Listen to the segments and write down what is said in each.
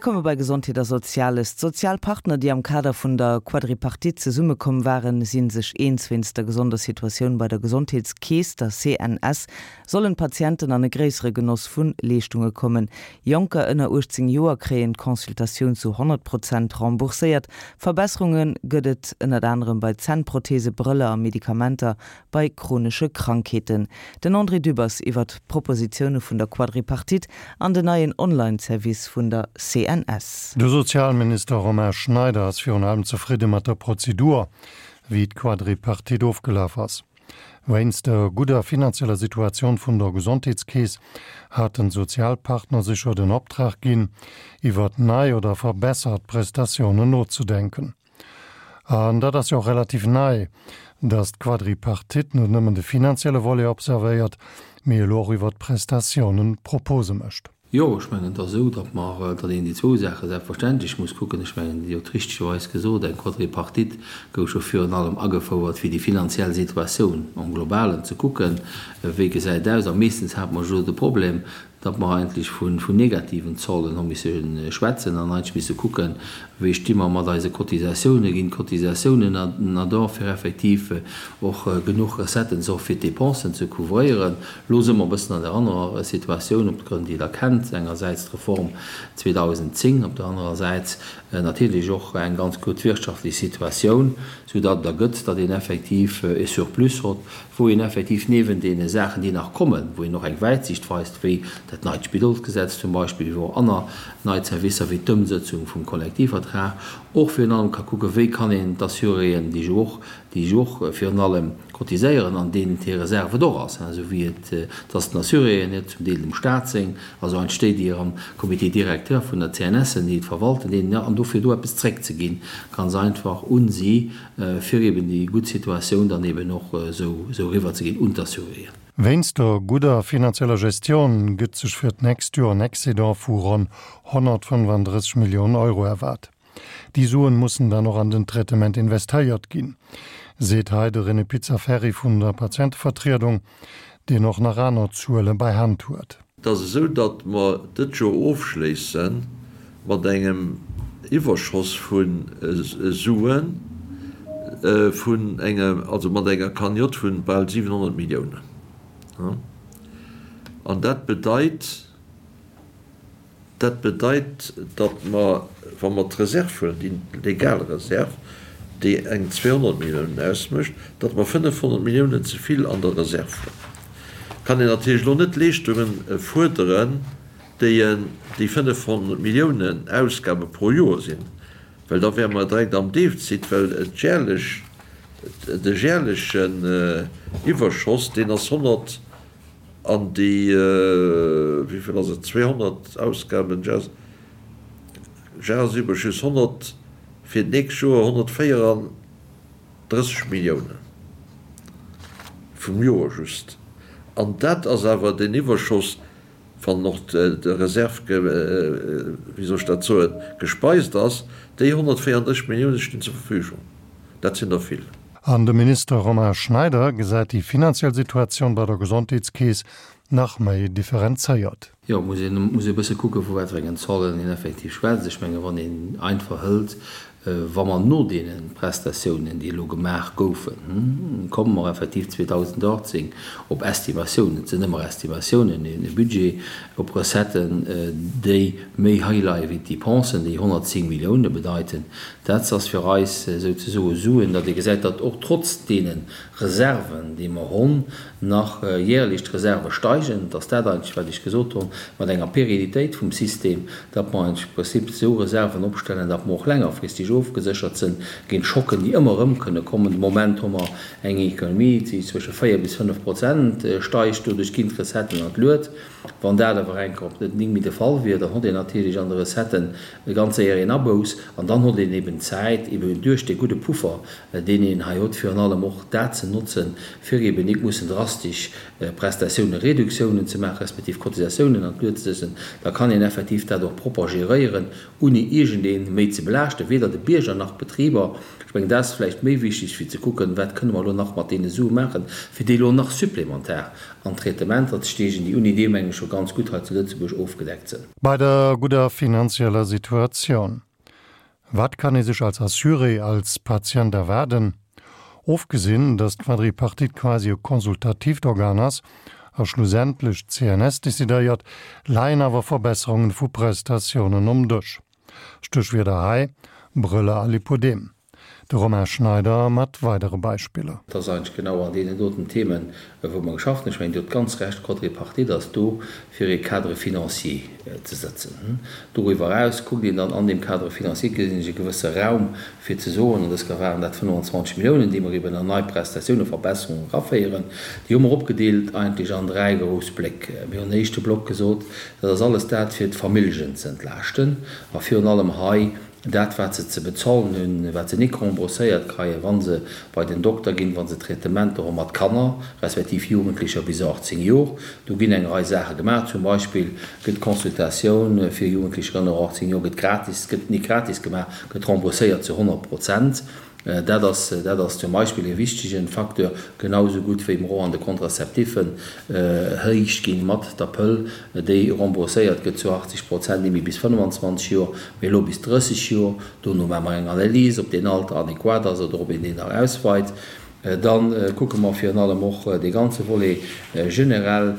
Mir komme bei Gesondheet a Soziales. D'Sozialpartner, déi am Kader vun der Quadripartite zesummekomm waren, si sech eens. Wéinst der gesonder Situatioun bei der Gesondheetskeess, der CNS, sollen d'Patienten an e gréissere Genoss vu Leeschtunge kommen. Jonker ënner 18 Joer kréien d'Consultatioun zu 100 Prozent rembourséiert. Verbesserunge gëtt et ënnert anerem bei Zännprothese, Brëller a Medikamenter bei chronesche Krankheeten. Den André Dübbers iwwert d'Propositioune vun der Quadripartite an den neien Online-Service vun der CNS. De Sozialminister Romain Schneider ass virun allem zefridde mat der Prozedur, wéi d'Quadripartite ofgelaf ass. Wéinst der gudder finanzieller Situatioun vun der Gesondheetskeess haten d'Sozialpartner sech jo den Optrag ginn, iwwert nei oder verbessert Prestatiounen nozedenken. An dat ass jo och relativ nei, datt d'Quadripartite net nëmmen de finanzielle Volet observéiert, mee elo och iwwert d'Prestatiounen Propose mécht. Jo, ech mengen, et ass esou, datt mer, datt een déi zwou Saache selbstverständlech muss kucken. Ech mengen, Dir hutt richtegerweis gesot, eng Quadripartite gouf jo virun allem agefouert, fir déi finanziell Situatioun en globalen ze kucken, wéi gesäit et aus. A meeschtens hate mer jo de Problem, datt mer eigentlech vun negativen Zollen hu misse schwätzen an eigentlech misse kucken, wéi sti mer mat eise Cotisatiounen, ginn d'Cotisatiounen na do, fir effektiv och genuch Recetten ze och fir d'Dépensen ze couvréieren. Elo si mer e bëssen an där anerer Situatioun, op de Grënn, déi Der kennt, engersäits d'Reform 2010, op der anerer Säit natierlech och eng ganz gutt wirtschaftlech Situatioun, soudatt et ergëtt, datt een effektiv e Surplus hott, wou een effektiv niewent deene Saachen, déi nach kommen, wou een och eng Wäitsicht weist, wéi dat neit Spidolsgesetz zum Beispill, wéi och aner nei Zerwisser, wéi d'Ëmsëtzung vum Kollektivvertrag, och virun allem ka kucken, wéi kann een d'Assuréen, déi jo och, déi jo och virun allem cotiséieren an deenen hir Reserve et och ass, esou wéi et, dass den Assuréen hir, zum Deel dem Stat seng, also eigentlech déi, déi am Comité directeur vun der CNS sinn, déi et verwalten, deenen, an dofir do eppes zréckzeginn, ganz einfach un si, fir eben déi gutt Situatioun dann eben och esou eriwwer ze ginn un d'Assuréen. Wéinst der gudder finanzieller Gestion gëtt sech fir d'nächst Joer en Excédent vu ronn 135 Milliounen Euro erwaart. Déi Suen mussen dann och an den Traitement investéiert ginn, seet hei de René Pizzaferri vun der Patientevertriedung, deen och nach aner Zuele bei Hand huet. Et ass esou, datt mer dët Joer ofschléisse mat engem Iwwerschoss vu Suen vun enger, also mat enger Cagnotte vu bal 700 Milliounen. An dat bedeit, Dat bedeit, datt mer, wa mer d'Reserv huelen, déi legal Reserv, déi eng 200 Milliounen ausmécht, datt mer 500 Milliounen ze vill an der Reserv hunn. Kann een natierlech elo net Leeschtungen fuerderen, déi déi 500 Milliounen Ausgabe pro Joer sinn, well da wäre mer direkt am Defizit, well d'järlech, de järlechen Iwwerschoss, deen ass 100, An déi, wéi vill ass et, 200 Ausgaben, Jahresüberschuss 100, fir d'nächst Joer 134 Milliounen vum Joer just. An dat ass awer den Iwwerschoss, wann och d'Reserv, wéi soll ech dat soen, gespeist ass. Déi 134 Milliounen stinn zur Verfügung. Dat sinn der vill. An de Minister Romain Schneider gesäit déi finanziell Situatioun bei der Gesondheetskeess nach méi differenzéiert. Jo, muss een muss ee bësse kucken, vu wat fir engen Zollen een effektiv schwätzt. Ech menge wann een einfach hëlt, wa mer no deene Prestatiounen, déi elo gemaach goufen, komme mer effektiv 2018 op Estimatiounen, et sinn ëmmer Estimatiounen, e Budget op Recetten, déi méi hei leie wéi d'Depensen, déi 110 Millioune bedeiten. Dat ass fir eis souzesoe Suen, datt ee gesäit, datt och trotz deene Reserven, déi mer honn, nach jährlech d'Reserve steigen. Et ass dat eigentlech, wat ech gesot honn, mat enger Pérennité vum System, datt mer eigentlech am Prinzip esou Reserven opstellen, datt mer och längerfristeg ofgeséchert sinn géint Schocken, déi ëmmer erëm kënne kommen. De Moment hu mer eng Économie, déi zwësche 4 bis 5 Prozent steigt. Doduerch ginn d'Recetten an d'Luet. Wann dat awer enker op net méi de Fall wier, dann hott een natierlech an de Recetten ganz séier een Abouss an dann hott een eben Zäit, eben duerch dee gudde Puffer, deen een hei hott, virun allem och dat ze notzen, fir eben nik mussen drastesch Prestatioune-Reduktiounen ze maachen, respektiv Cotisatiounen an d'Lued ze setzen. Da kann een effektiv dat och propper geréieren, ouni iergendee méi ze belaaschten, weder de. Bierger nach d'Betriber. Ech mengen, dat ass vläicht méi wichteg, wéi ze kucken, wat kënne mer elo nach mat deene Sue maachen, fir déi elo nach supplementar an Traitementer ze steegen, déi unni deem mengen ech scho ganz gutt hei zu Lëtzebuerg ofgedeckt sënn. Bei der gudder finanzieller Situatioun, wat kann ee sech als Assuré, als Patient erwaarden? Ofgesinn, datt d'Quadripartite quasi e konsultatiivt Organ ass a schlussendlech d'CNS decidéiert, leien awer Verbesserungen vu Prestatiounen um Dësch. Stéchwierder hei, Brëller a Lipodem. De Romain Schneider mat weidere Beispiller. Et ass eigentlech genau an deenen doten Themen, wou mer geschafft hunn. Ech mengen, Dir hutt ganz Recht, d'Quadripartite ass do, fir ee Cadre financier ze sëtzen. Doriwwer eraus kuckt een dann an deem Cadre financier, gesinn ech e gewësse Raum, fir ze soen, an dës Kéier waren dat 25 Milliounen, déi mer eben an nei Prestatiounen, Verbesserungen eraféieren. Déi hu mer opgedeelt eigentlech an dräi grouss Bléck. Mir hunn en éischte Block gesot, Dat ass alles dat, fir d'Familljen ze entlaaschten a virun allem hei dat, wat se ze bezahlen hunn, wat se nik rembourséiert kreien, wa se bei den Dokter ginn, wa se Traitementer hu mat Kanner respektiv Jugendlecher bis 18 Jor. Do ginn eng Rei Saache gemaach. Zum Beispill gëtt d'Consultatioun fir Jugendlecher ënner 18 Jor gëtt gratis, gëtt nik gratis gemaach, gëtt rembourséiert zu 100 Prozent. Dat ass, dat ass zum Beispill e wichtegen Facteur, genau esou gutt wéi mer och an de Contraceptiffen héich ginn mat der Pëll, déi rembourséiert gëtt zu 80 Prozent, ni méi bis 25 Joer, mee elo bis 30 Joer. Dono maache mer eng Analys, ob deen Alter adequat ass oder ob een deen nach ausweit. Da kucke mer virun allem och dee ganze Volet generell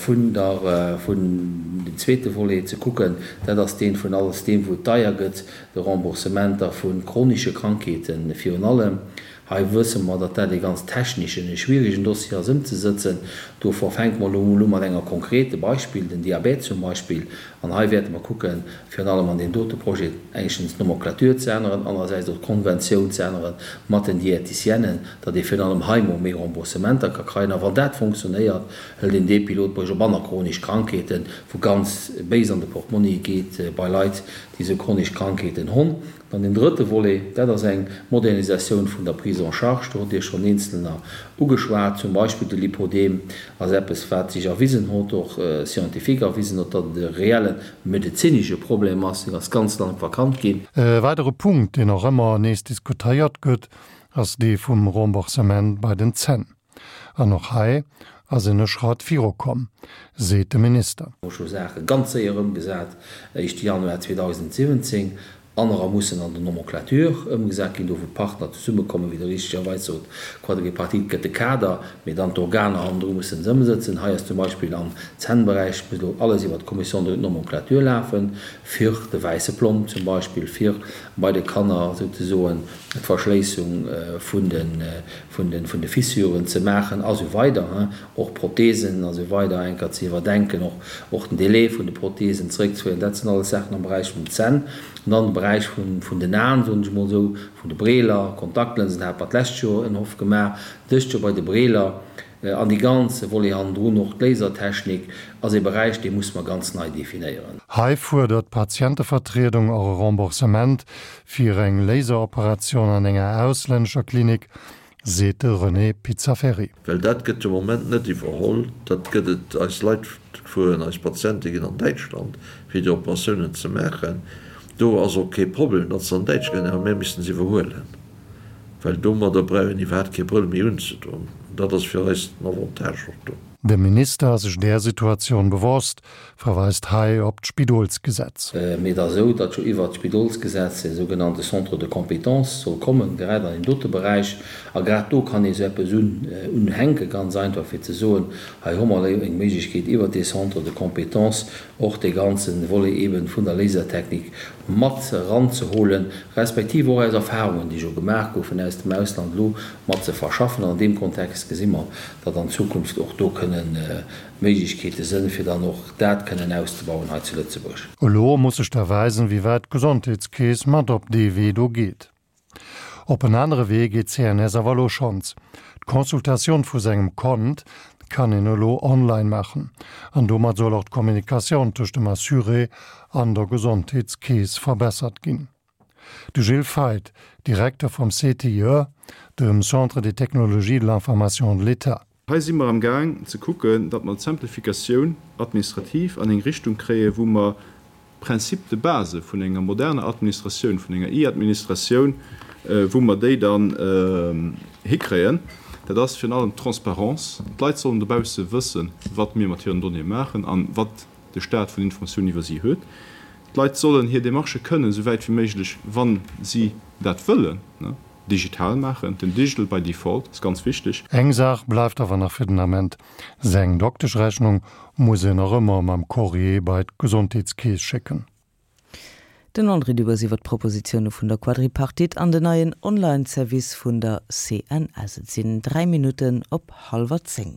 vun der, vun dem zweete Volet ze kucken, dat ass deen vun alles deem, wou et deier gëtt, de Remboursementer vu chronische Krankheeten virun allem. Hei wësse mer, datt dat ee ganz techneschen, e schwierigen Dossier ass ëmzesëtzen. Dovor fänke mer elo emol u mat enger konkrete Beispill, den Diabète zum Beispill. An hei wäerte mer kucken, virun allem an deem dote Projet éischtens d'Nomenclature ze änneren, anerersäits och d'Konventioun ze ännere mat den Diéticienen, datt ee virun allem hei mol méi Remboursementer ka kreien. A wann dat fonctionnéiert, hëlt een dee Pilotprojet op aner chronesch Krankheeten, wou ganz béis an de Portmonni geet bei Leit, déi esou chronesch Krankheeten honn. Dann deen drëtte Volet, dat ass eng Modernisatioun vun der Prise en charge. Do hutt Dir schonn eenzelner ugeschwat. Zum Beispill de Lipodem ass eppes, wat sech erwisen hott, och scientifique erwisen hott, datt et e reelle medezinesche Problem ass. Deen ass ganz lang verkannt ginn. E weidere Punkt, deen och ëmmer nees diskutéiert gëtt, ass dee vum Remboursement bei den Zänn. An och hei ass een e Schratt virukomm, seet de Minister. Hu scho Saache ganz séier ëmgesat, éischte Januar 2017, anerer mussen an der Nomenclature ëmgesat ginn, do wou d'Partner zesummekommen, wéi Der richtegerweis sot, Quadripartite gëtt de Kader, mee dann d'Organer hannendru mussen se ëmsëtzen. Hei ass zum Beispill am Zännberäich, muss elo alles iwwert d'Commission de nomenclature lafen, fir de wäisse Plomb zum Beispill, fir bei de Kanner souzesoen d'Verschléissung vun de Fissuren ze maachen a sou weider, och Prothesen a sou weider eng Kéier ze iwwerdenken, och den Délai vun de Prothesen zeréckzeféieren. Dat sinn alles Saachen am Beräich vun den Zänn. An dann de Beräich vun den Aen, soen ech emol esou, vun de Breeler, Kontaktlënsen hate mer d'lescht Joer en Hoff gemaach, dëst Joer bei de Breeler. An dee ganze Volet hannendrun, och d'Lasertechnik, ass ee Beräich, dee musse mer ganz nei definéieren. Hei fuerdert d'Patientevertriedung och e Remboursement fir eng Laseroperatioun an enger auslännescher Klinik, seet de René Pizzaferri. Well dat gëtt de Moment net iwwerholl. Dat gëtt et, eis Leit fueren, eis Patiente ginn an Däitschland, fir déi Operatiounen ze maachen. Do ass och kee Problem, datt se an Däitschland ginn, awer mir missten se iwwerhuelen. Well domadder brauch een iwwerhaapt kee Brëll méi unzedoen. Dat ass fir eis den Avantage och do. De Minister ass sech där Situatioun bewosst, verweist hei op d'Spidolsgesetz. Mee et ass esou, datt jo iwwert d'Spidolsgesetz e sougenannte Centre de compétences soll kommen, grad an deem dote Beräich. A grad do kann ee sou eppes unhänken, ganz einfach, fir ze soen, hei hu mer elo eng Méiglechkeet iwwert dee Centre de compétences och dee ganze Volet eeben vun der Lasertechnik mat eranzeholen, respektiv och aus Erfahrungen, déi scho gemaach goufen aus dem Ausland, elo mat ze verschaffen. An an deem Kontext gesi mer, datt an Zukunft och do kënnen Méiglechkeete sënn, fir dann och dat kënnen auszebauen hei zu Lëtzebuerg. Elo muss sech da weisen, wéi wäit d'Gesondheetskeess mat op dee Wee do geet. Op en anere Wee geet d'CNS awer elo schonns. D'Consultatioun vu sengem Kont kann een elo online maachen. An domat soll och d'Kommunikatioun tëscht dem Assuré an der Gesondheetskeess verbessert ginn. De Gilles Feith, Direkter vum CTIE, dem Centre des technologies de l'information de l'État. Hei si mer am Gaang ze kucken, datt mer d'Simplificatioun administrative an eng Richtung kréien, wou mer. Principes de base vun enger moderner Administratioun, vun enger E-Administratioun, wou mer déi dann hikréien. Dat ass virun allem d'Transparence. D'Leit sollen dobausse wëssen, wat mir mat hiren Donnéeë maachen an wat de Staat vun Informatiounen iwwer si huet. D'Leit sollen hir Demarchë kënnen, esou wäit wéi méiglech, wa si dat wëllen, digital maachen. Den Digital by default ass ganz wichteg. Eng Saach bleift awer nach fir den Ament, Seng Dokteschrechnung muss en nach ëmmer mam Courrier bei d'Gesondheetskeess schécken. Den André Dübbers iwwer d'Propositioune vun der Quadripartite an den neien Online-Service vun der CNS. Et sinn 3 Minutten op hallwer 10.